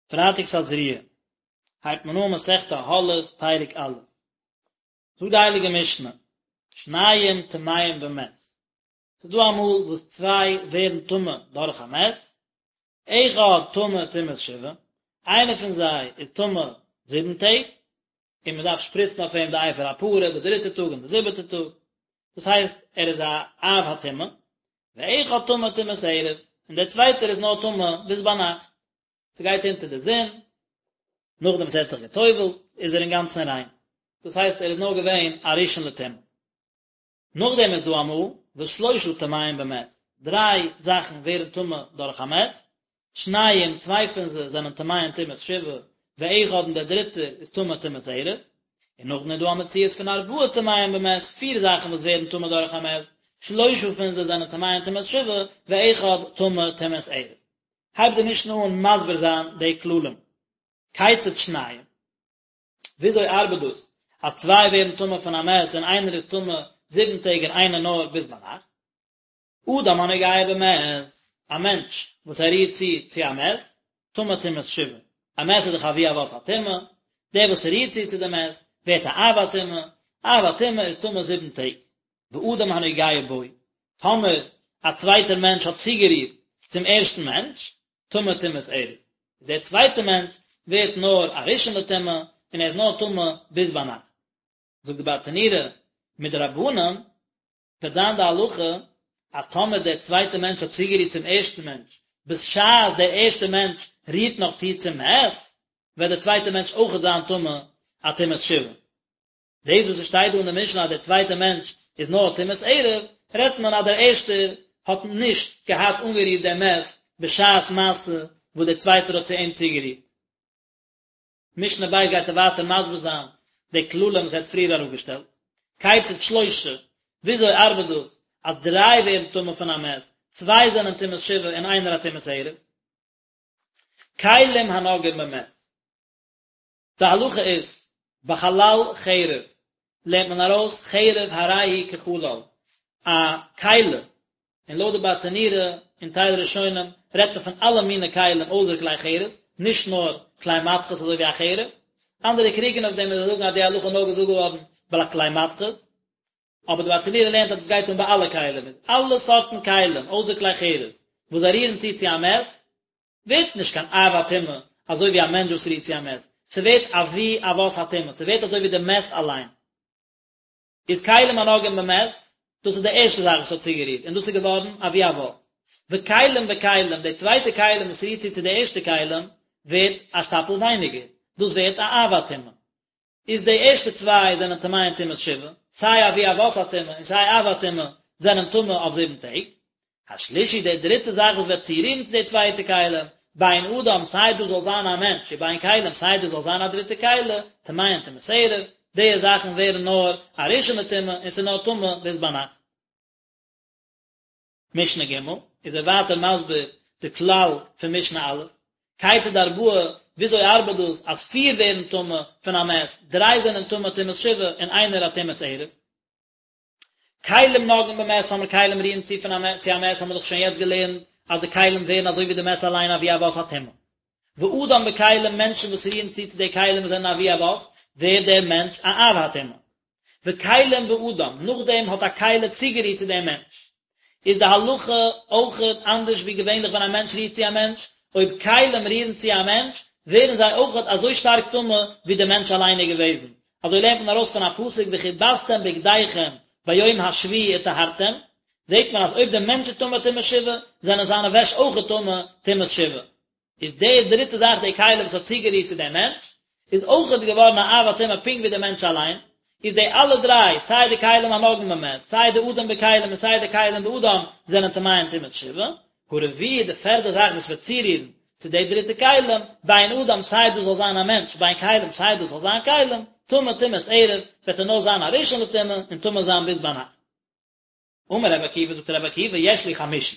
פרייטאג תזריע הייבט מען אן מסכת אהלות פרק א'. זאגט די הייליגע משנה, שניים טמאים במת, ס'איז דא אמאל וואס צוויי ווערן טמא דורך א מת, אחד טמא טומאת שבעה, איינער פון זיי איז טמא זיבן טעג, און מען דארף שפריצן אויף אים די אפר הפרה די דריטע טאג און די זיבעטע טאג, דאס הייסט ער איז א אב הטומאה, ואחד טמא טומאת ערב, און דער צווייטער איז נאר טמא ביז ביינאכט, ס'גייט אונטער די זון, נאכדעם וואס ער האט זיך גע'טובל'ט איז ער אינגאנצן ריין, דאס הייסט ער איז נאר געווען א ראשון לטומאה. נאכדעם איז דא אמאל וואס שלושה טמאים במת, דריי זאכן ווערן טמא דורך א מת, שניים, צוויי פון זיי זענען טמאים טומאת שבעה, ואחד און דער דריטער איז טמא טומאת ערב, און נאכדעם איז דא א מציאות פון ארבעה טמאים במת, פיר זאכן וואס ווערן טמא דורך א מת, שלושה פון זיי זענען טמאים טומאת שבעה, ואחד טמא טומאת ערב. הייבט די משנה אן מסביר זיין די כללים. כיצד שניים? וויאזוי ארבעט דאס אז צוויי ווערן טמא פון א מת און איינער איז טמא זיבן טעג און איינער נאר ביז ביינאכט? אדם הנוגע במת, א מענטש וואס ער רירט צו צו א מת, טמא טומאת שבעה, א מת איז דאך אבי אבות הטומאה, דער וואס רירט צו צו די מת, ווערט א אב הטומאה, אב הטומאה איז טמא זיבן טעג. ואדם הנוגע בו, טאמער א צווייטער מענטש האט צוגערירט צום ערשטן מענטש, טמא טומאת ערב, איז דער צווייטער מענטש ווערט נאר א ראשון לטומאה, און ער איז נאר טמא ביז ביינאכט. זאגט די ברטנורא, מדרבנן וועט זיין די הלכה אז טאמער דער צווייטער מענטש האט צוגערירט צום ערשטן מענטש בשעת דער ערשטער מענטש רירט נאך צו צום מת, וועט דער צווייטער מענטש אויכעט זיין טמא א טומאת שבעה. דאס וואס עס שטייט דא אין די משנה אז דער צווייטער מענטש איז נאר טומאת ערב, רעדט מען אז דער ערשטער האט נישט געהאט אנגערירט דעם מת בשעת מעשה וואס דער צווייטער האט צו אים צוגערירט. משנה ב' גייט ער ווייטער מסביר זיין די כללים וואס ער האט פריער אראפגעשטעלט. כיצד שלושה, וויאזוי ארבעט דאס אז דריי ווערן טמא פון א מת, צוויי זענען טומאת שבעה און איינער א טומאת ערב? כלים הנוגעים במת. די הלכה איז, בחלל חרב לערנט מען ארויס חרב הרי היא כחלל, א כלי, און לויט די ברטנורא און טייל ראשונים רעדט מען פון אלע מיני כלים אויסער כלי חרס, נישט נאר כלי מתכות אזוי ווי א חרב, אנדערע קריגן אויף דעם און זיי זאגן אז די הלכה איז נאר געזאגט געווארן ביי כלי מתכות, אבער די ברטנורא לערנט אז דאס גייט אן ביי אלע כלים, איז אלע סארטן כלים אויסער כלי חרס וואס זיי רירן צו צו א מת, ווערט נישט קיין אב הטומאה אזוי ווי א מענטש וואס רירט צו א מת, ס'ווערט אבי אבות הטומאה, ס'ווערט אזוי ווי די מת אליין. איז כלים הנוגעים במת, דאס איז די ערשטע זאך וואס האט צוגערירט, און דאס איז געווארן אבי אבות. וכלים בכלים, די צווייטע כלים וואס רירט צו צו די ערשטע כלים, ווערט א שטאפל ווייניגער, דאס ווערט א אב הטומאה. איז די ערשטע צוויי זענען טמאים טומאת שבעה, סיי אבי אבות הטומאה און סיי אב הטומאה זענען טמא אויף זיבן טעג. השלישי די דריטע זאך וואס וועט צורירן צו די צווייטע כלים, בין אדם סיי דאס זאל זיין א מענטש ובין כלים סיי דאס זאל זיין א דריטע כלי, טמאין טומאת ערב, די זאכן ווערן נאר א ראשון לטומאה און ס'איז נאר טמא ביז ביינאכט. משנה ג' איז ער ווייטער מסביר די כלל פון משנה א', כיצד ארבעה, וויאזוי ארבעט דאס אז פיר ווערן טמא פון א מת, דריי זענען טמא טומאת שבעה און איינער א טומאת ערב? כלים נוגעים במת, טאמער כלים רירן צו פון א מת צו א מת האבן מיר דאך שוין יעצט געלערנט אז די כלים ווערן אזוי ווי די מת אליין אבי אבות הטומאה. ואדם בכלים מענטשן וואס רירן צו צו די כלים וואס זענען אבי אבות, ווערט דער מענטש א אב הטומאה. וכלים באדם, נאכדעם האט א כלי צוגערירט צו דעם מענטש, איז די הלכה אויכעט אנדערש ווי געווענליך ווען א מענטש רירט צו א מענטש, אויב כלים רירן צו א מענטש, ווערן זיי אויכעט אזוי שטארק טמא ווי דער מענטש אליין איז געוועזן, אזוי לערנט מען ארויס פון א פסוק וכבסתם בגדיכם ביום השביעי וטהרתם, זעט מען אז אויב דער מענטש איז טמא טומאת שבעה, זענען זיינע וועש אויכעט טמא טומאת שבעה. איז די דריטע זאך די כלי וואס האט צוגערירט צו דעם מענטש, איז אויכעט געווארן א אב הטומאה פונקט ווי דער מענטש אליין, איז די אלע דריי, סיי די כלים הנוגעים במת, סיי די אדם בכלים און סיי די כלים באדם, זענען טמאים טומאת שבעה. הרביעי די פערדע זאך וואס וועט צורירן צו די דריטע כלים, בין אדם סיי דאס זאל זיין א מענטש, בין כלים סיי דאס זאל זיין כלים, טמא טומאת ערב, וועט ער נאר זיין א ראשון לטומאה און טמא זיין ביז ביינאכט. אמר רבי עקיבא, זאגט רבי עקיבא, יש לי חמישי,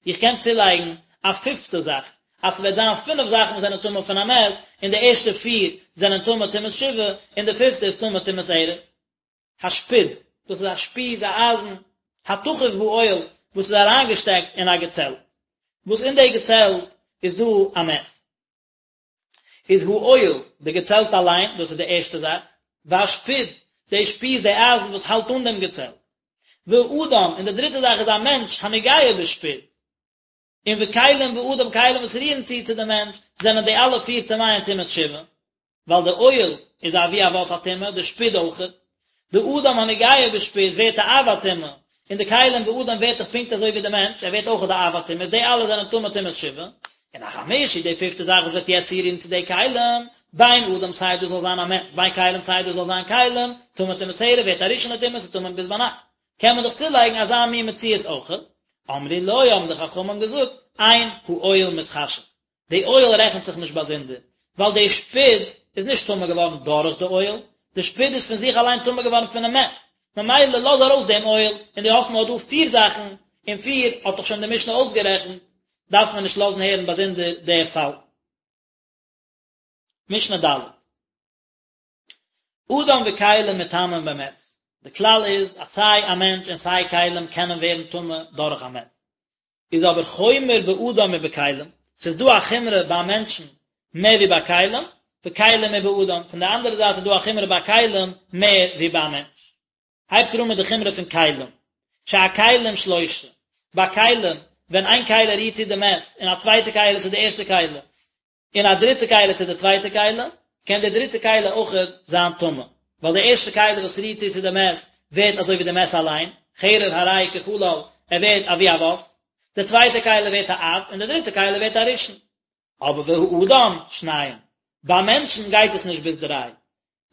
איך קען צולייגן א פיפטע זאך, אז ס'וועט זיין פינף זאכן וואס זענען טמא פון א מת, און די ערשטע פיר זענען טמא טומאת שבעה, און די פיפטע איז טמא טומאת ערב. השפוד, דאס איז א שפיז, א אייזן, התחוב באוהל, וואס איז אריינגעשטעקט אין א געצעלט, וואס אין די געצעלט איז דא א מת. איז האוהל, די געצעלט אליין, דאס איז די ערשטע זאך, והשפוד, די שפיז, די אייזן וואס האלט אן דעם געצעלט, והאדם, און די דריטע זאך איז א מענטש, הנוגע בשפוד, און וכלים באדם כלים וואס רירן צו צו די מענטש, זענען די אלע פיר טמאין טומאת שבעה, ווייל די אוהל איז אבי אבות הטומאה, די שפוד אויכעט, די אדם הנוגע בשפוד ווערט א אב הטומאה, און די כלים באדם ווערט דאך פונקט אזוי ווי די מענטש, ער ווערט אויכעט די אב הטומאה, די אלע זענען טמא טומאת שבעה, און החמישי, די פיפטע זאך וואס וועט יעצט צורירן צו די כלים, בין אדם סיי דאס זאל זיין א מענטש, בין כלים סיי דאס זאל זיין כלים, טמא טומאת ערב ווערט א ראשון לטומאה, ס'איז טמא ביז ביינאכט. קען מען דאך צולייגן אזא מין מציאות אויכעט. אמרו לו האבן די חכמים געזאגט, אין האוהל מתחשב, די אוהל רעכנט זיך נישט באזונדער, ווייל די שפוד איז נישט טמא געווארן דורך די אוהל, די שפוד איז פון זיך אליין טמא געווארן פונעם מת, ממילא לאז ארויס דעם אוהל, און דו האסט נאר דא פיר זאכן, און פיר האט דאך שוין די משנה אויסגערעכנט, דארף מען נישט לאזן הערן באזונדער די פאל. משנה ד'. אדם וכלים מטמאין במת, די כלל איז אז סיי א מענטש און סיי כלים קענען ווערן טמא דורך א מת, איז אבער חומר באדם מבכלים, ס'איז דא א חומרא ביי מענטשן מער ווי ביי כלים, בכלים מבאדם, פון די אנדערע זייט איז דא א חומרא ביי כלים מער ווי ביי א מענטש. הייבט ער אן מיט די חומרא פון כלים, שהכלים שלושה, ביי כלים, ווען איין כלי רירט צו די מת, און א צווייטע כלי צו די ערשטע כלי, און א דריטע כלי צו די צווייטע כלי, קען די דריטע כלי אויכעט זיין טמא, ווייל די ערשטע כלי וואס רירט צו צו די מת ווערט אזוי ווי די מת אליין, חרב הרי הוא כחלל, ער ווערט אבי אבות, די צווייטע כלי ווערט א אב, און די דריטע כלי ווערט א ראשון. אבער והאדם, שניים, ביי מענטשן גייט עס נישט ביז דריי,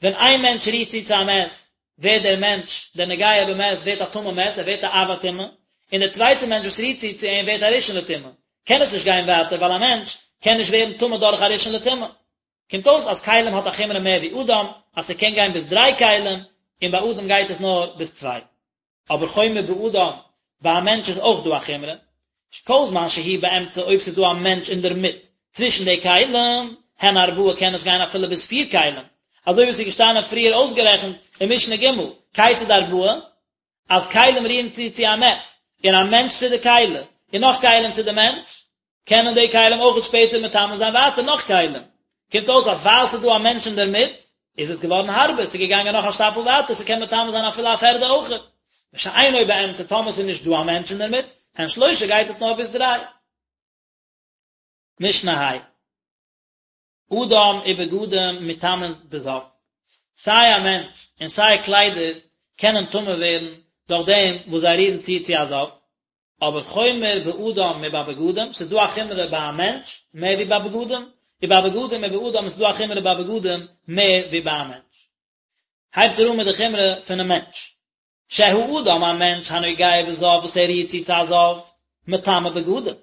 ווען איין מענטש רירט צו צו א מת, ווערט דער מענטש, דער נוגע במת, ווערט א טמא מת, ער ווערט א אב הטומאה, און דער צווייטער מענטש וואס רירט צו צו אים ווערט א ראשון לטומאה. קען עס נישט גיין ווייטער, ווייל א מענטש קען נישט ווערן טמא דורך א ראשון לטומאה. קומט אויס אז כלים האט א חומרא מער ווי אדם, אז ס'קען גיין ביז דריי כלים, און ביי אדם גייט עס נאר ביז צוויי. אבער חומר באדם, ביי א מענטש איז אויך דא א חומרא, כל זמן שהוא באמצע אויב ס'איז דא א מענטש אינדערמיט צווישן די כלים, הן ארבעה קען עס גיין אפילו ביז פיר כלים, אזוי ווי ס'איז געשטאנען פריער אויסגערעכנט אין משנה ג', כיצד ארבעה, אז כלים רירן צו צו א מת, און א מענטש צו די כלי, און נאך כלים צו די מענטש, קענען די כלים אויכעט שפעטער מטמא זיין ווייטער נאך כלים. קומט אויס אז ווייל ס'איז דא א מענטש אינדערמיט, איז עס געווארן הארבער, ס'איז געגאנגען נאך א שטאפל ווייטער, ס'קען מטמא זיין אפילו א פערדע אויכעט. ושאינו באמצע, טאמער ס'איז נישט דא א מענטש אינדערמיט, הן שלושה גייט עס נאר ביז דריי. משנה ה'. אדם ובגדים מטמאין בזב, סיי א מענטש און סיי קליידער קענען טמא ווערן דורך דעם וואס זיי רירן צו צו א זב, אבער חומר באדם מבבגדים, ס'איז דא א חומרא ביי א מענטש מער ווי ביי בגדים, ובבגדים מבאדם איז דא א חומרא ביי בגדים מער ווי ביי א מענטש. הייבט ער אן מיט די חומרא פונעם מענטש. שהאדם א מענטש הנוגע בזב וואס ער רירט צו צו א זב, מטמא בגדים,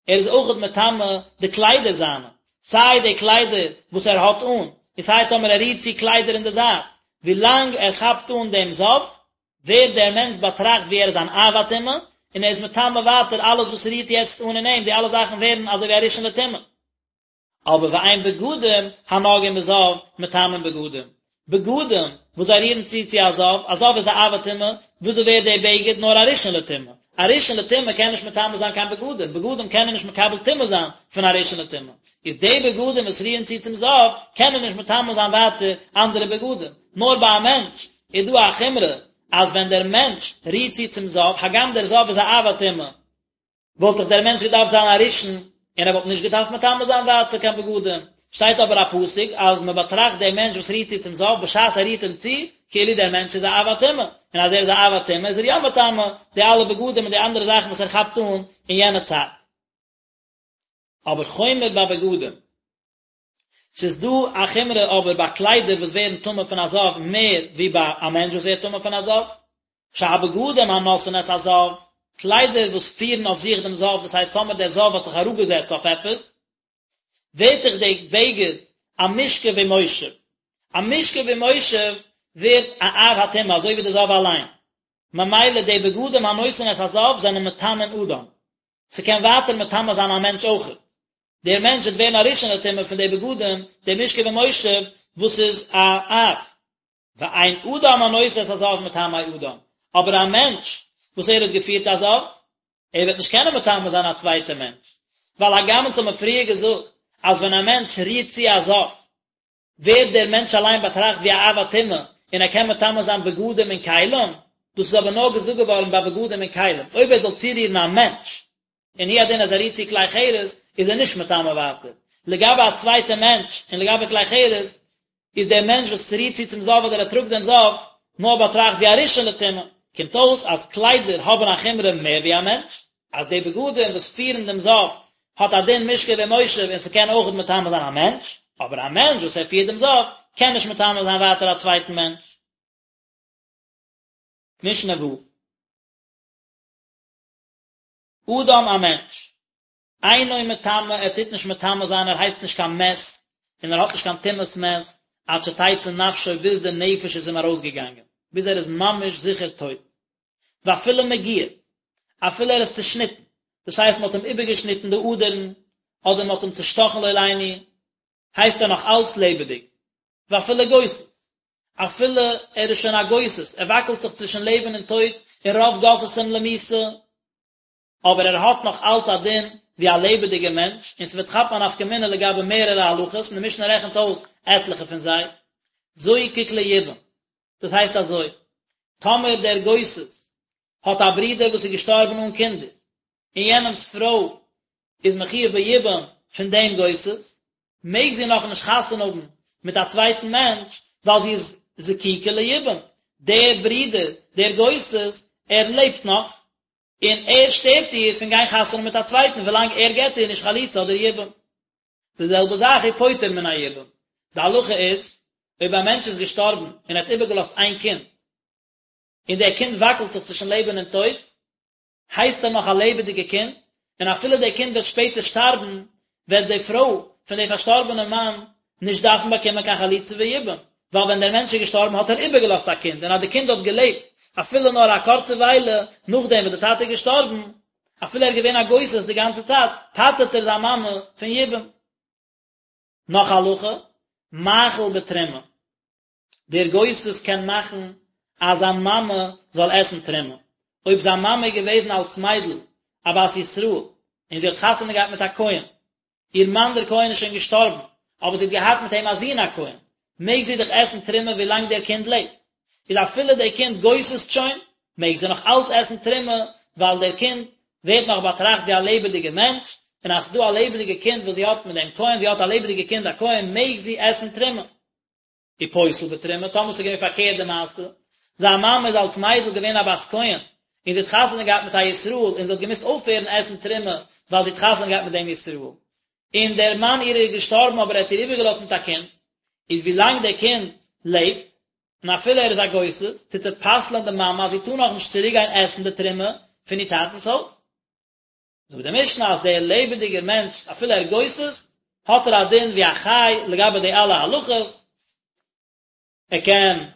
ער איז אויכעט מטמא די קליידער זיינע, סיי די קליידער וואס ער האט אן, און סיי טאמער ער רירט צו קליידער אין די זייט, ווילאנג ער כאפט אן דעם זב, ווערט דער מענטש באטראכט ווי ער איז אן אב הטומאה, און ער איז מטמא ווייטער אלעס וואס רירט יעצט אן אין אים, די אלע זאכן ווערן אזוי ווי א ראשון לטומאה. אבער ואין בגדים הנוגעים בזב מטמאין בגדים, בגדים וואס זיי רירן צו צו א זב, א זב איז א אב הטומאה, וויאזוי ווערט דער בגד נאר א ראשון לטומאה? א ראשון לטומאה קען נישט מטמא זיין קיין בגדים, בגדים קענען נישט מקבל טומאה זיין פון א ראשון לטומאה, איז די בגדים וואס רירן צו צום זב קענען נישט מטמא זיין ווייטער אנדערע בגדים, נאר ביי א מענטש איז דא א חומרא אז ווען דער מענטש רירט צו צום זב, הגם דער זב איז א אב הטומאה, וואלט דאך דער מענטש געדארפט זיין א ראשון, און ער וואלט נישט געדארפט מטמא זיין ווייטער קיין בגדים. שטייט אבער א פסוק אז מען באטראכט דעם מענטש וואס רירט צו צום זב בשעת ער רירט אים צו, כאילו דער מענטש איז א אב הטומאה, און אז ער איז א אב הטומאה איז ער יא מטמא די אלע בגדים און די אנדערע זאכן וואס ער כאפט אן אין יענע צייט. אבער חומר בבגדים. ס'איז דא א חומרא אבער ביי קליידער וואס ווערן טמא פון א זב מער ווי ביי א מענטש וואס ווערט טמא פון א זב. שהבגדים הנושאין את הזב, קליידער וואס פירן אויף זיך דעם זב, דאס הייסט טאמער דער זב האט זיך אראפגעזעצט אויף עפעס, ווערט דאך די בגד א משכב ומושב. א משכב ומושב ווערט א אב הטומאה אזוי ווי די זב אליין. ממילא די בגדים הנושאין את הזב זענען מטמאין אדם. ס'קען ווייטער מטמא זיין א מענטש אויכעט. דער מענטש וועט ווערן א ראשון לטומאה פון די בגדים, די משכב ומושב וואס איז א אב. ואין אדם הנושא את הזב מטמא אדם, אבער א מענטש וואס ער האט געפירט א זב, ער וועט נישט קענען מטמא זיין א צווייטע מענטש, ווייל הגם אונז האבן פריער געזאגט. אז ווען א מענטש רירט צו א זב, ווערט דער מענטש אליין באטראכט ווי א אב הטומאה און ער קען מטמא זיין בגדים און כלים, דאס איז אבער נאר געזאגט געווארן ביי בגדים און כלים, אויב ער זאל צורירן א מענטש, און הוא הדין אז ער רירט צו כלי חרס, איז ער נישט מטמא ווייטער. לגבי א צווייטע מענטש און לגבי כלי חרס, איז דער מענטש וואס רירט צו צום זב אדער ער טראגט דעם זב, נאר באטראכט ווי א ראשון לטומאה. קומט אויס אז קליידער האבן א חומרא מער ווי א מענטש, אז די בגדים וואס פירן דעם זב האט א דין משכב ומושב און ס'קען אויכעט מטמא זיין א מענטש, אבער א מענטש וואס ער פירט דעם זב קען נישט מטמא זיין ווייטער א צווייטן מענטש. משנה ו'. אדם א מענטש, אינו מטמא ער טוט נישט מטמא זיין ער הייסט נישט קיין מת און ער האט נישט קיין טומאת מת עד שתצא נפשו ביז די נפש איז אים ארויסגעגאנגען ביז ער איז ממש זיכער טויט ואפילו מגויד אפילו ער איז צושניטן דאס הייסט מען האט אים איבערגעשניטן די אדערן אדער מען האט אים צושטאכן לא עלינו הייסט ער נאך אלץ לעבעדיג ואפילו גוסס אפילו ער איז שוין א גוסס ער וואקלט זיך צווישן לעבן און טויט און רוב גוססים למיתה אבער ער האט נאך אלץ א דין ווי א לעבעדיגער מענטש, און ס'וועט כאפן א נפקא מינה לגבי מערערע הלכות, און די משנה רעכנט אויס עטליכע פון זיי. זוקק ליבום, דאס הייסט אזוי, טאמער דער גוסס האט א ברודער וואס איז געשטארבן אן קינדער, און יענעמ'ס פרוי איז מחויב ביבום פון דעם גוסס, מעג זי נאכנישט חתונה האבן מיט א צווייטן מענטש, ווייל זי איז זקוקה ליבום, דער ברודער, דער גוסס, ער לעבט נאך, און ער שטערט איר פון גיין חתונה מיט א צווייטן ווילאנג ער געבט איר נישט חליצה אדער יבום. די זעלבע זאך ופוטר מן היבום. די הלכה איז, אויב א מענטש איז געשטארבן און ער האט איבערגעלאזט איין קינד, און דער קינד וואקלט זיך צווישן לעבן און טויט, הייסט ער נאך א לעבעדיגע קינד, און אפילו דער קינד וועט שפעטער שטארבן, וועט די פרוי פון די פארשטארבענע מאן נישט דארפן באקומען קיין חליצה ויבום, ווייל ווען דער מענטש איז געשטארבן האט ער איבערגעלאזט א קינד, און אז די קינד האט געלעבט אפילו נאר א קורצע וויילע נאכדעם וואס די טאטע איז געשטארבן, אפילו ער איז געווען א גוסס די גאנצע צייט, פטר'ט ער זיין מאמע פון יבום. נאך א הלכה, מאכיל בתרומה. דער גוסס קען מאכן אז זיין מאמע זאל עסן תרומה. אויב זיין מאמע איז געוועזן אלס מיידל א בת ישראל און זי האט חתונה געהאט מיט א כהן, איר מאן דער כהן איז שוין געשטארבן, אבער זי האט געהאט מיט אים א זון א כהן, מעג זי דאך עסן תרומה ווילאנג דער קינד לעבט. איז אפילו דער קינד גוסס'ט שוין, מעג זי נאך אלץ עסן תרומה, ווייל דער קינד ווערט נאך באטראכט ווי א לעבעדיגער מענטש, און אז ס'איז דא א לעבעדיגע קינד וואס זי האט מיט דעם כהן, זי האט א לעבעדיגע קינד א כהן, מעג זי עסן תרומה. ופוסל בתרומה, טאמער ס'איז געווען פארקערט די מעשה, זיין מאמע איז אלס מיידל געווען א בת כהן, און זי האט חתונה געהאט מיט א ישראל, און זי האט געמוזט אויפהערן עסן תרומה, ווייל זי האט חתונה געהאט מיט דעם ישראל. און דער מאן אירער איז געשטארבן אבער ער האט איר איבערגעלאזט מיט א קינד, איז ווי לאנג דער קינד לעבט, און אפילו ער איז א גוסס, טוט ער פסל'ען די מאמע אז זי טאר נאכנישט צוריקגיין עסן די תרומה פון איר טאטנ'ס הויז. זאגט די משנה אז דער לעבעדיגער מענטש אפילו ער גוסס'ט האט ער א דין ווי א חי לגבי די אלע הלכות, ער קען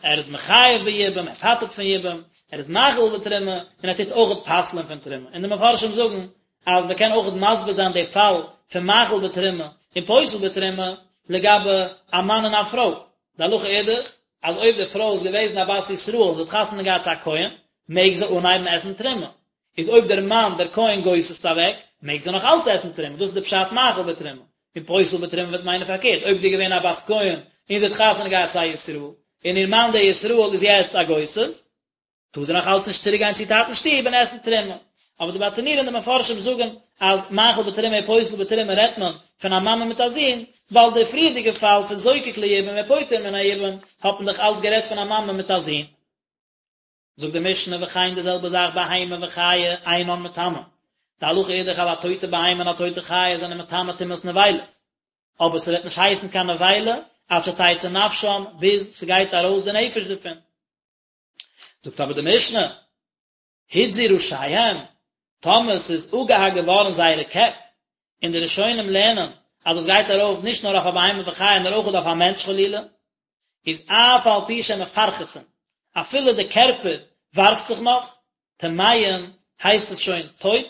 ער איז מחייב ביבום, ער פטר'ט פון יבום, ער איז מאכיל בתרומה, און ער טוט אויכעט פסל'ען פון תרומה. און די מפרשים זאגן אז מען קען אויכעט מסביר זיין די פאל פון מאכיל בתרומה און פוסל בתרומה לגבי א מאן און א פרוי. די הלכה איז דאך אז אויב די פרוי איז געוועזן א בת ישראל און זי האט חתונה געהאט צו א כהן, מעג זי אנהייבן עסן תרומה. איז אויב דער מאן דער כהן גוסס'ט אוועק, מעג זי נאך אלץ עסן תרומה, דאס איז די פשט מאכיל בתרומה. און פוסל בתרומה וועט מיינען פארקערט, אויב זי איז געווען א בת כהן און זי האט חתונה געהאט צו א ישראל, און איר מאן דער ישראל איז יעצט א גוסס, טאר זי נאך אלץ נישט צוריק גיין צו איר טאטנ'ס שטוב און עסן תרומה. אבער די ברטנורא און די מפרשים זאגן אז מאכיל בתרומה און פוסל בתרומה רעדט מען פון א מאמע מיט א זון, ווייל די פריערדיגע פאל פון זוקק ליבום ופוטר מן היבום האט מען דאך אלץ גערעדט פון א מאמע מיט א זון. זאגט די משנה וכן די זעלבע זאך בהמה וחיה אינן מטמאין, די הלכה איז דאך אז א טויטע בהמה און א טויטע חיה זענען מטמא טומאת נבילות, אבער ס'וועט נישט הייסן קיין נבילה עד שתצא נפשם ביז ס'גייט ארויס די נפש דערפון. זאגט אבער די משנה, הותזו ראשיהם, טאמער ס'איז אפגעהאקט געווארן זייערע קעפ, און די ראשונים לערנען אז דאס גייט ארויף נישט נאר אויף א בהמה וחיה נאר אויך אויף א מענטש חלילה, איז אף על פי שמפרכסין, אפילו די קערפער ווארפט זיך נאך, טמאין, הייסט עס שוין טויט,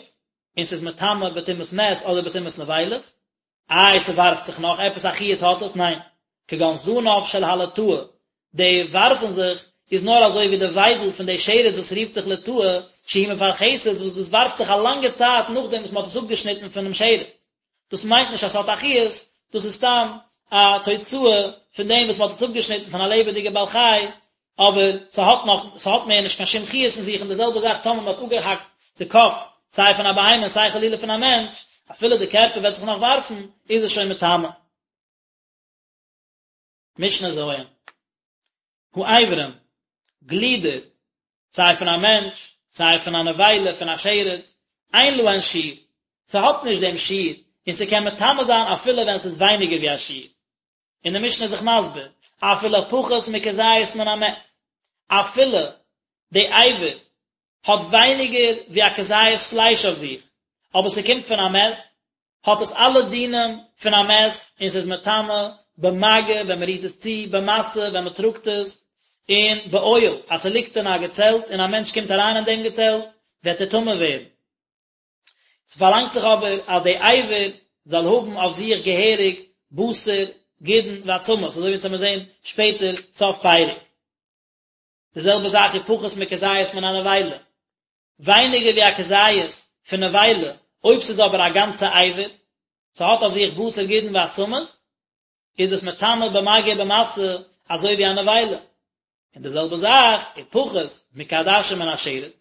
און ס'איז מטמא בטומאת מת אדער בטומאת נבילות, איי ס'ווארפט זיך נאך, עפעס א חיות האט עס? ניין. כגון זנב של הלטאה, די ווארפן זיך איז נאר אזוי ווי די וויידל פון די שרץ וואס רופט זיך לטאה, שהיא מפרכסת וואס דאס ווארפט זיך א לאנגע צייט נאכדעם וואס מ'האט עס אפגעשניטן פונעם שרץ. דאס מיינט נישט אז ס'האט א חיות, דאס איז סתם א תוצאה פון דעם וואס מ'האט עס אפגעשניטן פון א לעבעדיגע בעל חי, אבער ס'האט נאך, ס'האט מער נישט קיין שום חיות אין זיך, און די זעלבע זאך טאמער מ'האט אפגעהאקט די קאפ, סיי פון א בהמה און סיי חלילה פון א מענטש, אפילו די קערפער וועט זיך נאך ווארפן, איז עס שוין מטמא. משנה ז'. האיברים, גלידער, סיי פון א מענטש, סיי פון א נבילה, פון א שרץ, אין להן שיעור, ס'האט נישט דעם שיעור, און ס'קען מטמא זיין אפילו ווען ס'איז ווייניגער ווי א שיעור. און די משנה איז זיך מסביר, אפילו פחות מכזית מן המת, אפילו די אבר האט ווייניגער ווי א כזית פלייש אויף זיך, אבער ס'קומט פון א מת, האט עס אלע דינים פון א מת און ס'איז מטמא במגע ווען מ'רירט עס צו, במשא ווען מ'טראגט עס, און באוהל אז ס'ליגט אין א געצעלט און א מענטש קומט אריין אין דעם געצעלט וועט ער טמא ווערן. ס'פארלאנגט זיך אבער אז די אבר זאל האבן אויף זיך געהעריג בשר, גידין ועצמות, אזוי ווי אונז וועמיר זען שפעטער סוף פרק. די זעלבע זאך איז פחות מכזית מן הנבילה, ווייניגער ווי א כזית פון נבילה, אויב ס'איז אבער א גאנצע אבר, ס'האט אויף זיך בשר גידין ועצמות, איז עס מטמא במגע ובמשא אזוי ווי א נבילה. און די זעלבע זאך איז פחות מכעדשה מן השרץ,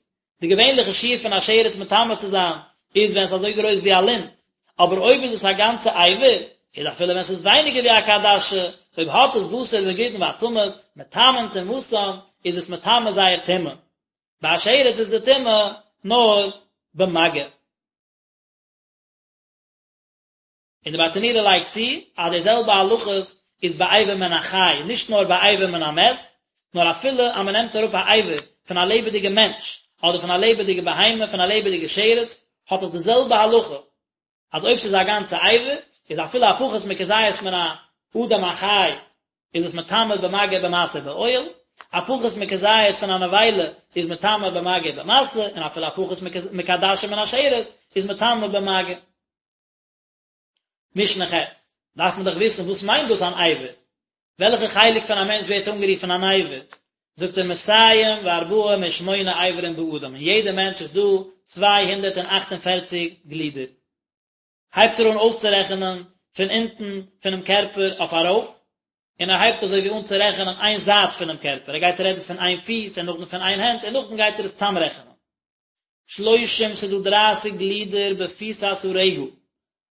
די געווענליכע שיעור פון א שרץ מטמא צו זיין איז ווען ס'איז אזוי גרויס ווי א לינט, אבער אויב איז עס א גאנצע אבר, איז אפילו ווען ס'איז ווייניגער ווי א כעדשה, אויב האט עס בשר וגידין ועצמות, מטמאין טומאתן, איז עס מטמא זייער טומאה. ביי א שרץ איז די טומאה נאר במגע. און די ברטנורא לייגט צו אז די זעלבע הלכות איז ביי אבר מן החי, נישט נאר ביי אבר מן המת, נאר אפילו אז מען נעמט אראפ א אבר פון א לעבעדיגע מענטש, אדער פון א לעבעדיגע בהמה, פון א לעבעדיגע שרץ, האט עס די זעלבע הלכה, אז אויב ס'איז א גאנצע אבר, איז אפילו א פחות מכזית מן האדם החי, איז עס מטמא במגע במשא באוהל, א פחות מכזית פון א נבילה איז מטמא במגע במשא, און אפילו א פחות מכעדשה מן השרץ איז מטמא במגע. משנה ח', דארף מען דאך וויסן וואס מיינט דאס אן אבר? וועלכע חלק פון א מענטש ווערט אנגערופן אן אבר? זאגט ער מאתים וארבעים ושמונה אברים באדם, אין יעדע מענטש איז דא 248 גלידער. הייבט ער אן אויסצורעכענען פון אונטן פונעם קערפער אויף ארויף, און ער הייבט אזוי ווי אן צו רעכענען איין זייט פונעם קערפער, ער גייט רעדן פון איין פיס און נאכדעם פון איין הענט און נאכדעם גייט ער עס צאמרעכענען. שלושים ס'איז דא דרייסיג גלידער בפיסת הרגל,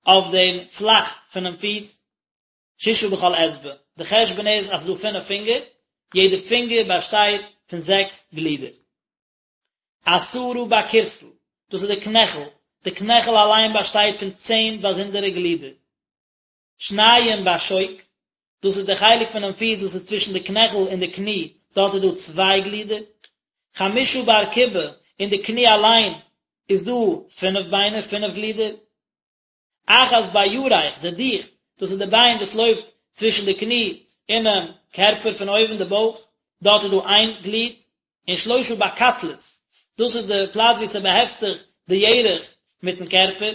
אויף דעם פלאך פונעם פיס, ששה בכל אצבע, די חשבון איז אז ס'איז דא פינף פינגער, יעדע פינגער באשטייט פון זעקס גלידער. עשרה בכורסל, דאס איז די קנעכל, די קנעכל אליין באשטייט פון צען באזונדערע גלידער. שניים בשוק, דאס איז די חלק פונעם פיס וואס איז צווישן די קנעכל און די קני, דארט איז דא צוויי גלידער. חמשה בארקובה, אין די קני אליין איז דא פינף ביינער, פינף גלידער. אחת בירך, די דיך, דאס איז די ביין וואס לויפט צווישן די קני אינעם קערפער פון אויבן, די בויך, דארט איז דא איין גליד, און שלושה בקטלית, דאס איז די פלאץ וואו ס'באהעפט זיך די ירך מיטן קערפער.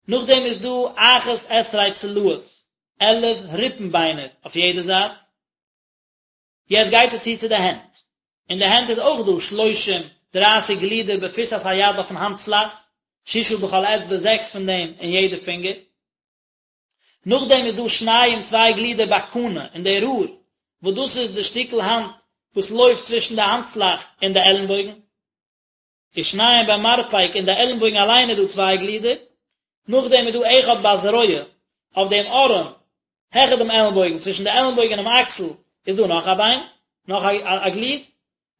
נאכדעם איז דא אחת עשרה צלעות, 11 ריפן ביינער אויף יעדע זייט. יעצט גייט ער צו צו די הענט. אין די הענט איז אויך דא שלושים, דרייסיג גלידער בפיסת היד אויפן האנט פלאך, ששה בכל אצבע זעקס פון דעם אין יעדע פינגער. נאכדעם איז דא שניים צוויי גלידער בקנה אין די רור, וואס דאס איז די שטיקל האנט וואס לויפט צווישן די האנט פלאך און די עלנבויגן. ושניים במרפק אין די עלנבויגן אליין איז דא צוויי גלידער, נאכדעם איז דא אחד בזרוע אויף דעם ארעם העכער דעם עלנבויגן צווישן די עלנבויגן און דעם אקסל איז דא נאך א ביין, נאך א גליד,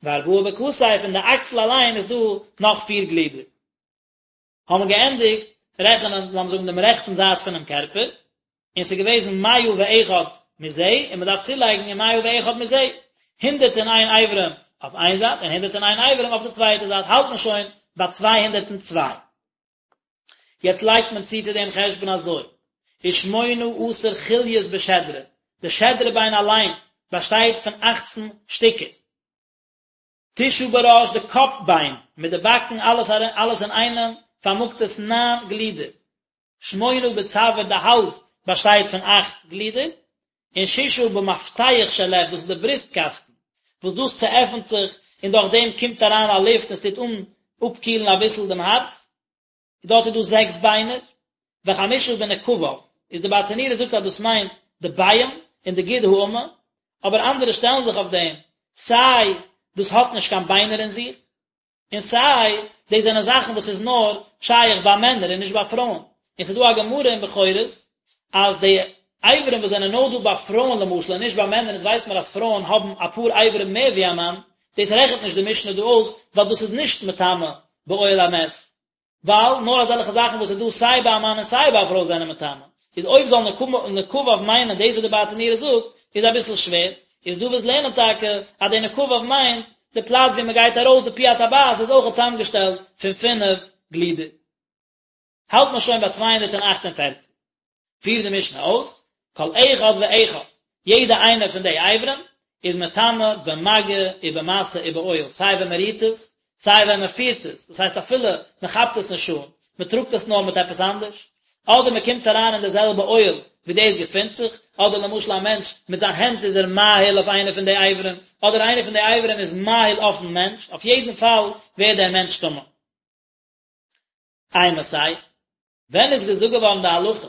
וארבעה בכתף אין די אקסל אליין איז דא נאך פיר גלידער. האבן מיר געענדיגט רעכענען לאמיר זאגן דעם רעכטן זייט פונעם קערפער, און ס'איז געוועזן מאה ואחד מזה, און מ'דארף צולייגן און מאה ואחד מזה, 101 אברים אויף איין זייט און 101 אברים אויף די צווייטע זייט, האלט מען שוין ביי 202. יעצט לייגט מען צו צו דעם חשבון אזוי, ושמונה עשר חוליות בשדרה, די שדרה ביין אליין באשטייט פון אכצן שטיקער. תשעה בראש, די קאפ ביין מיט די באקן אלעס אלעס אינאיינעם פארמאגט עס ניין גלידער. שמונה בצוואר, די האלז באשטייט פון אכט גלידער, און ששה במפתח של לב, דאס איז די בריסט קאסטן, וואס דאס צועפנט זיך און דורך דעם קומט אריין א לופט און עס טוט אן אפקילן אביסל דעם הארץ, דארט איז דא זעקס ביינער. וחמשה בנקביו, איז די ברטנורא זאגט אז דאס מיינט די ביעים און די גיד האמה, אבער אנדערע שטעלן זיך אויף דעם, סיי דאס האט נישט קיין ביינער אין זיך, און סיי דאס זענען זאכן וואס איז נאר שייך ביי מענער און נישט ביי פרויען, און ס'איז דא א גמרא אין בכורות אז די אברים וואס זענען נאר דא ביי פרויען למשל און נישט ביי מענער, אונז ווייס מיר אז פרויען האבן אפאר אברים מער ווי א מאן, דאס רעכנט נישט די משנה דא אויס ווייל דאס איז נישט מטמא באוהל המת. ווייל נאר אזעלכע זאכן וואס איז דא סיי ביי א מאן און סיי ביי א פרוי זענען מטמא, איז אויב זאל נקביו מיינען דאס וואס די ברטנורא זאגט, איז אביסל שווער, איז דא וואס לערנען טאקע אז די נקביו מיינט די פלאץ ווי מען גייט ארויס די פי הטבעת איז אויך צוזאמגעשטעלט פון פינף גלידער. האלט מען שוין ביי 248. פירט די משנה אויס, כל אחד ואחד, יעדע איינע פון די אברים איז מטמא במגע ובמשא ובאוהל, סיי ווען מען רירט עס, סיי ווען מען פירט עס, דאס הייסט אפילו מען כאפט עס נישט אן, מען טראגט עס נאר מיט עפעס אנדערש, אדער מען קומט אריין אין די זעלבע אוהל ווי דאס געפינט זיך, אדער למשל א מענטש מיט זיין הענט איז ער מאהיל אויף איינע פון די אברים, אדער איינע פון די אברים איז מאהיל אויפן מענטש, אויף יעדן פאל ווערט דער מענטש טמא. אימתי, ווען איז געזאגט געווארן די הלכה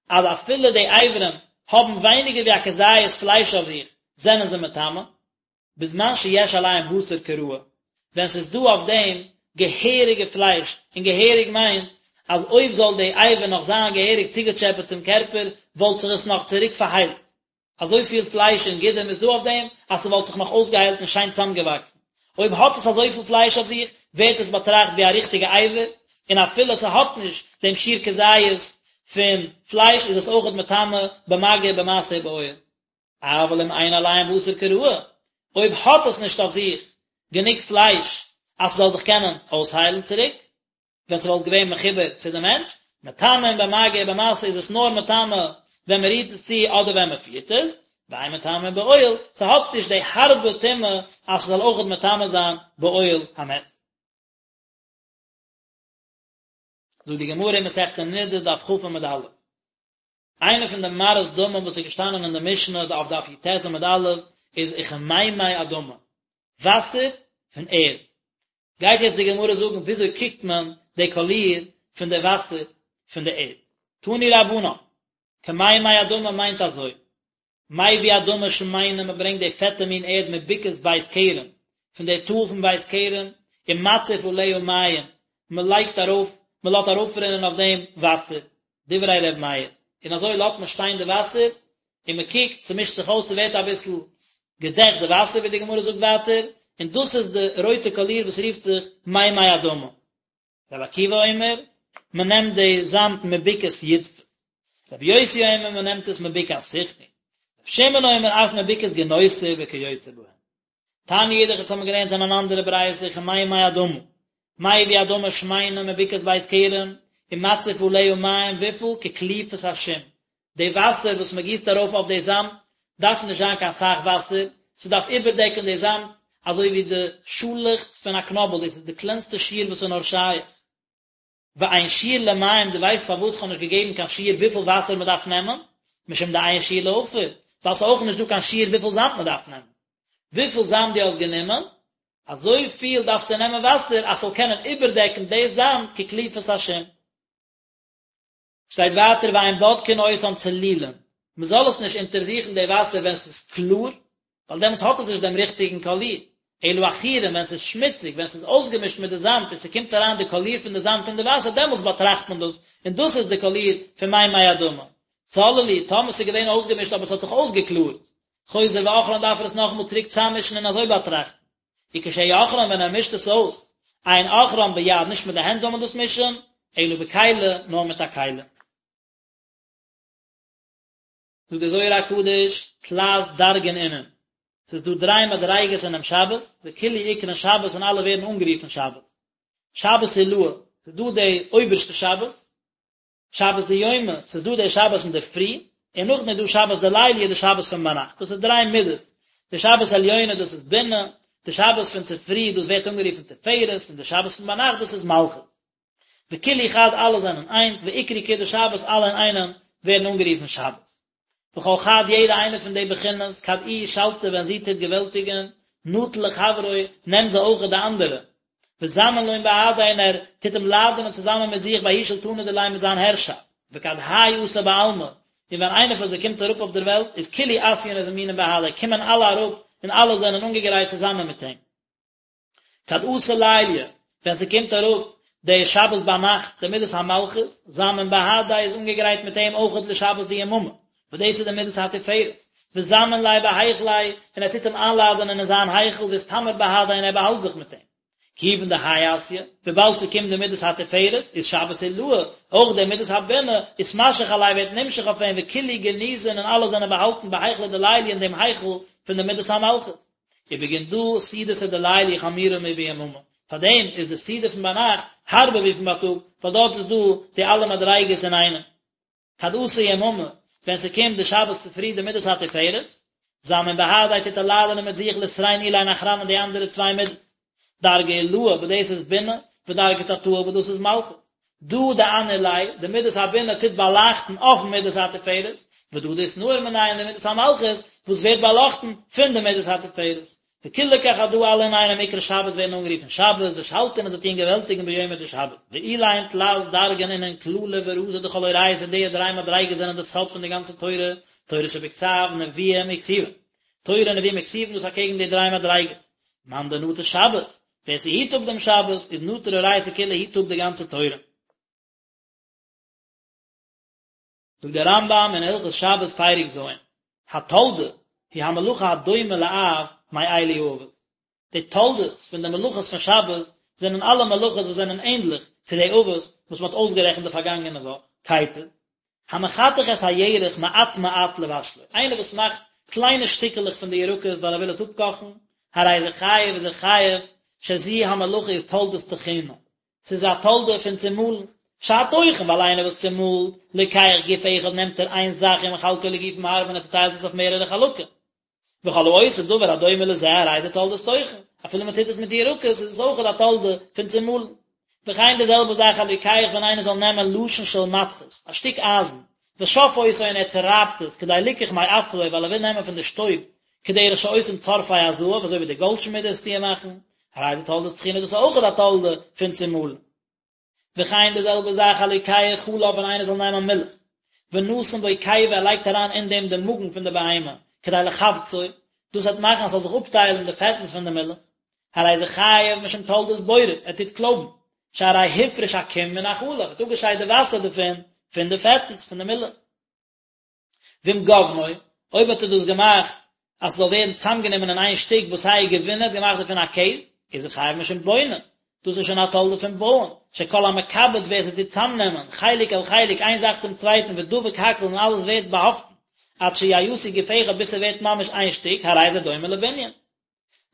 אז אפילו די אברים האבן ווייניגער ווי א כזית פלייש אויף זיך זענען זיי מטמא? בזמן שיש עליהם בשר כראוי, ווען ס'איז דא אויף דעם געהעריגע פלייש, און געהעריג מיינט אז אויב זאל די אבר נאך זיין געהעריג צוגעטשעפעט צום קערפער וואלט זיך עס נאך צוריק פארהיילט, אזויפיל פלייש און גידים איז דא אויף דעם אז ס'וואלט זיך נאך אויסגעהיילט און שיין צוזאמגעוואקסן. אויב האט עס אזויפיל פלייש אויף זיך, ווערט עס באטראכט ווי א ריכטיגע אבר, און אפילו ס'האט נישט דעם שיעור כזית פון פלייש איז עס אויכעט מטמא במגע במשא ובאוהל. אבל אם אין עליהם בשר כראוי, אויב האט עס נישט אויף זיך גענוג פלייש אז ס'זאל זיך קענען אויסהיילן צוריק, ווען ס'וואלט געווען מחובר צו די מענטש, מטמאין במגע ובמשא איז עס נאר מטמא ווען מ'רירט עס צו אדער ווען מ'פירט עס, ואין מטמאין באוהל, ס'האט נישט די הארבע טומאה אז ס'זאל אויכעט מטמא זיין באוהל המת. זאגט די גמרא אין מסכת נדה דף כ עמוד א', איינע פון די מראות דמים וואס איז געשטאנען אין די משנה אויף דף י"ט עמוד א' איז וכמימי אדמה, וואסער פון ערד. גייט יעצט די גמרא זאגן וויאזוי קוקט מען די קאליר פון די וואסער פון די ערד. תנו רבנן, כמימי אדמה מיינט אזוי, מביא אדמה שמנה מען ברענגט די פעטע מין ערד מבקעת בית כרם, פון די טאל פון בית כרם, ומציף עליה מים, מען לייגט ארויף, מען לאזט ארויפרינען אויף דעם וואסער, דברי ר' מאיר, און אזוי לאזט מען שטיין די וואסער, און מען קוקט, ס'מישט זיך אויס, ס'ווערט אביסל געדעכט די וואסער, ווי די גמרא זאגט ווייטער, און דאס איז די רויטע קאליר וואס רופט זיך מימי אדמה. רבי עקיבא אומר, מען נעמט די זאמד מבקעת ידפת. רבי יוסי אומר, מען נעמט עס מבקעת סיחון. רבי שמעון אומר, אף מבקעת גינוסר וכיוצא בהן. תניא אידך, אונז האבן געלערנט אין אן אנדערע ברייתא, כמימי אדמה, מביא אדמה שמנה מבקעת בית כרם, ומציף עליה מים וויפיל כקליפת השום, די וואסער וואס מען גיסט ארויף אויף די זאמד דארף נישט זיין קיין סאך וואסער, ס'דארף איבערדעקן די זאמד אזוי ווי די שאלעכץ פון א קנאבל, דאס איז די קלענסטע שיעור וואס איז נאר שייך. ואין שיעור למים, דו ווייסט פארוואס כ'האב נישט געגעבן קיין שיעור וויפיל וואסער מען דארף נעמען? משום דאין שיעור לעפר, ווייל ס'איז אויך נישט דא קיין שיעור וויפיל זאמד מען דארף נעמען. וויפיל זאמד דו האסט גענומען, אזוי פיל דארפסטו נעמען וואסער אז ס'זאל קענען איבערדעקן די זאמד כקליפת השום. שטייט ווייטער ואין בודקין אותן צלולין, מען זאל עס נישט אונטערזוכן די וואסער ווען ס'איז קלאר, ווייל דעמאלטס האט עס נישט דעם ריכטיגן קאליר, אלא עכורין ווען ס'איז שמוציג, ווען ס'איז אויסגעמישט מיט די זאמד און ס'קומט אריין די קאליר פון די זאמד אין די וואסער דעמאלטס באטראכט מען דאס, און דאס איז די קאליר פון מימי אדמה. צללו, טאמער ס'איז געווען אויסגעמישט אבער ס'האט זיך אויסגעקלארט, חוזר ועוכרן דארף ער עס נאכאמאל צוריק צאממישן און אזוי באטראכטן. וכשהוא עוכרן ווען ער מישט עס אויס, אין עוכרן ביד נישט מיט די הענט זאל מען דאס מישן, אלא בכלי נאר מיט א כלי. זאגט דער זוהר הקדוש, תלת דרגין אינון, ס'איז דא דריי מדריגות אינעם שבת, וכולהו אקרון שבת און אלע ווערן אנגערופן שבת. שבת עילאה, ס'איז דא די אויבערשטע שבת, שבת דיומא, ס'איז דא די שבת אינדערפרי, און נאכדעם איז דא שבת דליליא די שבת פון ביינאכט, דאס איז דריי מידות, די שבת עליונה דאס איז בינה, די שבת פון צופרי דאס ווערט אנגערופן תפארת, און די שבת פון ביינאכט דאס איז מלכות. וכולהו חד אלע זענען איינס, ואקרי כולא שבת אלע אינאיינעם ווערן אנגערופן שבת. וכל חד יעדע איינע פון די בחינות, כד איהי שלטא ווען זי טוט געוועלטיגען, נטיל לחברוי, נעמט זי אויכעט די אנדערע. וזמין לון בהדיה און ער טוט אים לאדענען צוזאמען מיט זיך בההוא שולטנא דיליה מיט זיין הערשאפט. וכד האי אתא בעלמא, און ווען איינער פון זיי קומט אראפ אויף דער וועלט, איז כולהו אתיין וזמינין בהדיה, קומען אלע אראפ און אלע זענען אנגעגרייט צוזאמען מיט אים. כד אתא ליליא, ווען ס'קומט אראפ די שבת ביינאכט, די מידת המלכות, זמין בהדיה איז אנגעגרייט מיט אים אויכעט לשבת דיממא, וואס דאס איז די מידת התפארת, וזמין ליה בהיכליה, און ער טוט אים איינלאדענען אין זיין היכל, ואסתמר בהדיה און ער באהאלט זיך מיט אים. כיוון דהאי אתיא, וויבאלד ס'קומט די מידת התפארת, איז שבת עילאה, אויך די מידת הבינה, אתמשך עליה ווערט נמשך אויף אים, וכולהו גניזין און אלע זענען באהאלטן בהיכלא דליליא אין דעם היכל פון די מידת המלכות. ובגין דא סעודתא דליליא חמירא מביממא, פאר דעם איז די סעודה פון ביינאכט הארבער ווי פון בייטאג, ווייל דארט איז דא די אלע מדריגות אינאיינעם. כד אתא יממא, ווען ס'קומט די שבת צופרי די מידת התפארת, זמין בהדיה טוט ער לאדענען מיט זיך לתרין אלין אחרנין די אנדערע צוויי מידות, דרגא עילאה וואס דאס איז בינה, ודרגא תתאה וואס דאס איז מלכות. דא דאנהיר ליה, די מידת הבינה טוט באלייכטן אויפן מידת התפארת, ודא דאתנהיר מניה און די מידת המלכות וואס ווערט באלאכטן פון די מידת התפארת. וכולהו כחדא אלע אינאיינעם אקרי שבת ווערן אנגערופן שבת, ושלטין און זיי טוען געוועלטיגן ביומא דשבת. ואלין תלת דרגין אינון כללא ורזא דכל אורייתא די דריי מדריגות זענען די סוד פון די גאנצע תורה, תורה שבכתב, נביאים וכתובים. תורה נביאים וכתובים דאס אקעגן די דריי מדריגות. מאן דנטר שבת, ווער ס'היט אפ דעם שבת, איז נטר אורייתא כולא היט אפ די גאנצע תורה. זאגט דער רמב"ם אין הלכות שבת פרק ז', התולדה היא המלאכה הדומה לאב מאלו האבות, די תולדות פון די מלאכות פון שבת זענען אלע מלאכות וואס זענען ענדליך צו די אבות וואס מען האט אויסגערעכנט די פארגאנגענע וואך, כיצד? המחתך את הירק מעט מעט לבשלו, איינער וואס מאכט קליינע שטיקעלעך פון די ירקות ווייל ער וויל עס אפקאכן, הרי זה חייב איז ער חייב, שזו המלאכה איז תולדת טחינה, ס'איז א תולדה פון צומאלן, שהטוחן, ווייל איינער וואס צומאלט, לוקח גוף אחד נעמט ער איין זאך ומחלקו לגופים הרבה און ער צוטיילט עס אויף מערערע חלקים. וכל העושה דבר הדומה לזה הרי זה תולדת טוחן, אפילו מען טוט עס מיט ירקות איז עס אויכעט א תולדה פון צומאלן. וכן די זעלבע זאך הלוקח ווען איינער זאל נעמען לשון של מתכת, א שטיק אייזן, ושף אותו און ער צורייבט עס כדי ליקח מעפרו ווייל ער וויל נעמען פון די שטויב, כדרך שעושים צורפי הזהב אזוי ווי די גאלדשמידעס טוען מאכן, הרי זה תולדת טחינה דאס איז אויכעט א תולדה פון צומאלן. וכן די זעלבע זאך הלוקח חלב ווען איינער זאל נעמען מילך, ונתן בו קיבה ער לייגט אריין אין דעם די מאגן פון די בהמה, כדי לכווצו, דאס וועט מאכן אז ס'זאל זיך אפטיילן די פעטנס פון די מילך, הרי זה חייב משום תולדת בורר, ער טוט קלויבן, שהרי הפריש הקום מן החלב, ער האט אפגעשיידט די וואסער דערפון, פון די פעטנס פון די מילך. ואם גבנו, אויב האט ער דאס געמאכט אז ס'זאל ווערן צוזאמגענומען אין איין שטיק ועשהו גבינה, האט געמאכט דערפון א קעז, איז ער חייב משום בונה, דאס איז שוין א תולדה פון בויען, שכל המקבץ ווער ס'טוט צוזאמנעמען, חלק אל חלק, איין זאך צום צווייטן, ודבק הכל און אלעס ווערט באהאפטן, עד שיעשו גוף אחד ביז ס'ווערט ממש איין שטיק, הרי זה דומה לבנין.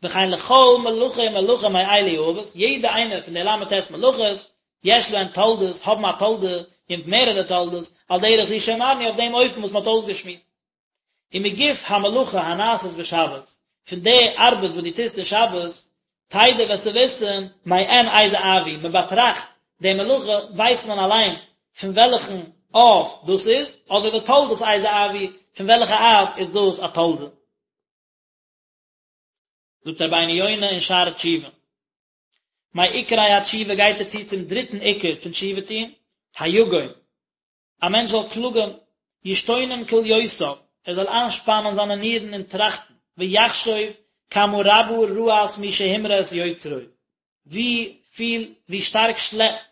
וכן לכל מלאכה ומלאכה מאלו האבות, יעדע איינע פון די ל"ט מלאכות, יש להן תולדות, האבן א תולדה, און מערערע תולדות, על דרך זו שאמרנו אויף דעם אופן וואס מען האט אויסגעשמועסט. ומגוף המלאכה הנעשית בשבת, פון די ארבעט וואס דו טוסט אין שבת, תדע וועסטו וויסן, מעין איזה אב הוא, מען באטראכט די מלאכה, ווייסט מען אליין פון וועלכן אב דאס איז, אדער ותולדת איזה אב הוא, פון וועלכע אב איז דאס א תולדה. זאגט רבינו יונה אין שערי תשובה, מעיקרי התשובה גייט ער צו צום דריטן עיקר פון תשובה טון, היגון, א מענטש זאל קלאגן, ישתונן כליותיו, ער זאל איינשפאנען זיינע נירן און טראכטן, ויחשוב כמה רבה רעת מי שהמרה את יוצרו, ווי פיל, ווי שטארק שלעכט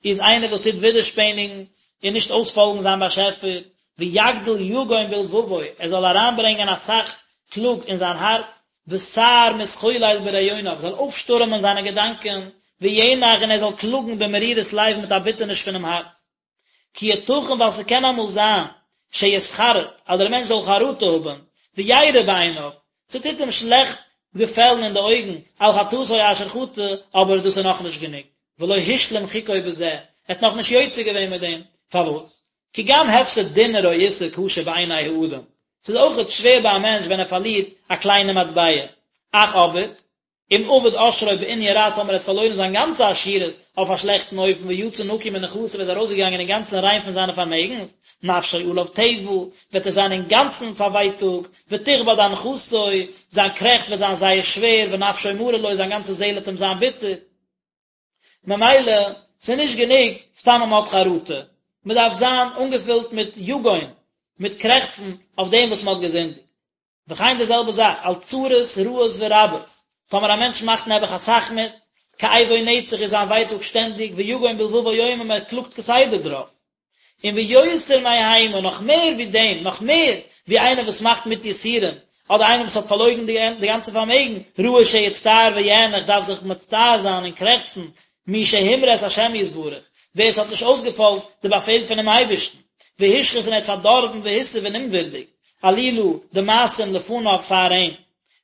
איז איינער וואס טוט ווידערשפעניגן און נישט אויספאלגן זיין באשעפער, ויגדיל יגון בלבבו, ער זאל אריינברענגען אסאך קלאג אין זיין הארץ, וסער מתחולל ברעיוניו, זאל אויפשטורעמען זיינע געדאנקען, וינח און ער זאל קלאגן במרירות לב מיט א ביטערניש פונעם הארץ. כי יתכן ווייל ס'קען אמאל זיין שיתחרט אז דער מענטש זאל חרטה האבן, וירע בעיניו, ס'טוט אים שלעכט געפעלן אין די אויגן, על חטאתו אשר חטא, אבער דאס איז נאכנישט גענוג, ולא השלים חוקו בזה, ער האט נאכנישט יוצא געווען מיט דעם, פארוואס? כי גם הפסד דינר או איסר קשה בעיני האדם, ס'איז אויכעט שווער ביי א מענטש ווען ער פארלירט א קליינע מטבע, אך אבער, אם אבד עושרו בענין רע טאמער ער האט פארלוירן זיין גאנצע עשירות אויף א שלעכטן אופן ויצא נקי מנכסיו איז ארויסגעגאנגען אינגאנצן ריין פון זיינע פארמעגנס, נפשו עליו תאבה, וועט ער זיין אינגאנצן פארווייטאגט, ותכבד אנחתו, זיין קרעכץ וועט זיין זייער שווער, ונפשו מרה לו, זיין גאנצע זעהל וועט אים זיין ביטער. ממילא, ס'איז נישט גענוג סתם אז מ'האט חרטה. מען דארף זיין אנגעפילט מיט יגון, מיט קרעכצן אויף דעם וואס מען האט געזינדיגט. וכן די זעלבע זאך, על צרות רעות ורבות, טאמער א מענטש מאכט נעבעך אסאך מיט, כאבו נצח איז זיין ווייטאג שטענדיג, ויגון בלבבו יומם ער קלאגט כסדר דערויף. און ויותר מהמה, נאך מער ווי דעם, נאך מער ווי איינער וואס מאכט מיט יסורים, אדער איינער וואס האט פארלוירן די גאנצע פארמעגן, ראוי שיצטער ויאנח דארף זיך מצטער זיין און קרעכצן, מי שהמרה את השם יתברך, ווער עס האט נישט אויסגעפאלגט די באפעל פונעם אייבערשטן, והשחית און ער האט פארדארבן והתעיב און אומווירדיג, עלילה, די מעשים לפניו פאר אים.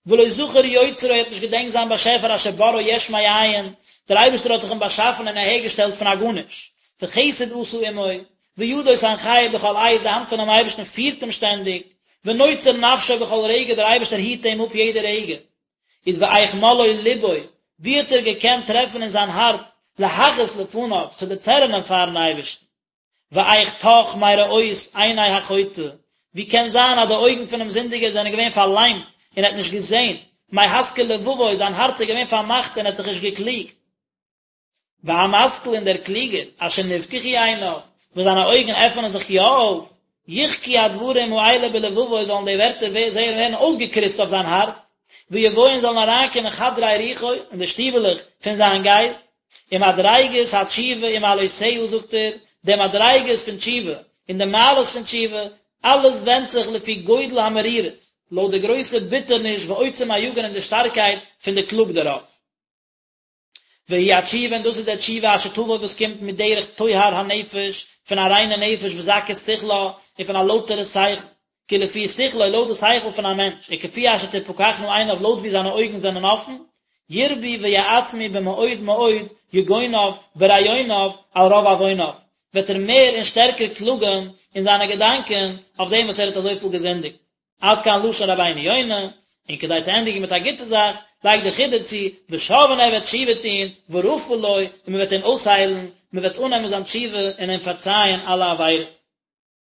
ולא זכר יוצרו ער האט נישט געדענקט זיין באשעפער אשר בראו יש מאין, דער אייבערשטער האט דאך אים באשאפן און אהערגעשטעלט פון א גארנישט, וחסד עשה עמו, וידו תנחהו בכל עת, די האנט פונעם אייבערשטן פירט אים שטענדיג, ונוצר נפשו בכל רגע, דער אייבערשטער היט אים אפ יעדע רגע. איז ואיך מלאו לבו, ווי האט ער געקענט טרעפן אין זיין הארץ להכעיס לפניו, צו דערצערענען פארן אייבערשטן? ואיך טח מראות עיני החוטא, ווי קען זיין אז די אויגן פונעם זינדיגער זענען געווען פארליימט און ער האט נישט געזען, מהשכיל לבבו, זיין הארץ איז געווען פארמאכט און ער האט זיך נישט געקליגט. והמשכיל און דער קלוגער, אשר נפקחו עיניו, וואס זיינע אויגן עפענען זיך יא אויף, יחקו הדברים האלה בלבבו זאלן די ווערטער ווערן אויסגעקריצט אויף זיין הארץ, ויבואו און זאלן אריינקומען חדרי רוחו, אין די שטיבעלעך פון זיין גייסט, ומדריגות התשובה ומעלותיה זאגט ער, די מדריגות פון תשובה און די מעלות פון תשובה, אלעס ווענדט זיך לפי גודל המרירות, לויט די גרויסע ביטערניש ועוצם היגון און די שטארקייט פון די קלאג דערויף. והיא התשובה און דאס איז די תשובה אשר תבוא וואס קומט מדרך טוהר הנפש, פון א ריינע נפש וזכות שכלה, און פון א לויטערע שכל, כי לפי שכלו לויט די שכל פון א מענטש, וכפי אשר תפקחנה עיניו לויט ווי זיינע אויגן זענען אפן, ירבו ויעצמו במאוד מאוד יגוניו ברעיוניו על רוב עווניו, וועט ער מער און שטערקער קלאגן אין זיינע געדאנקען אויף דעם וואס ער האט אזויפיל געזינדיגט. עד כאן לשון רבינו יונה, און כדי צו ענדיגן מיט א גוטע זאך, לייגט דער חידא צו, ושב און ער וועט תשובה טון, ורפא לו, און מען וועט אים אויסהיילן, מען וועט אננעמען זיין תשובה און אים פארצייען אלע עבירות.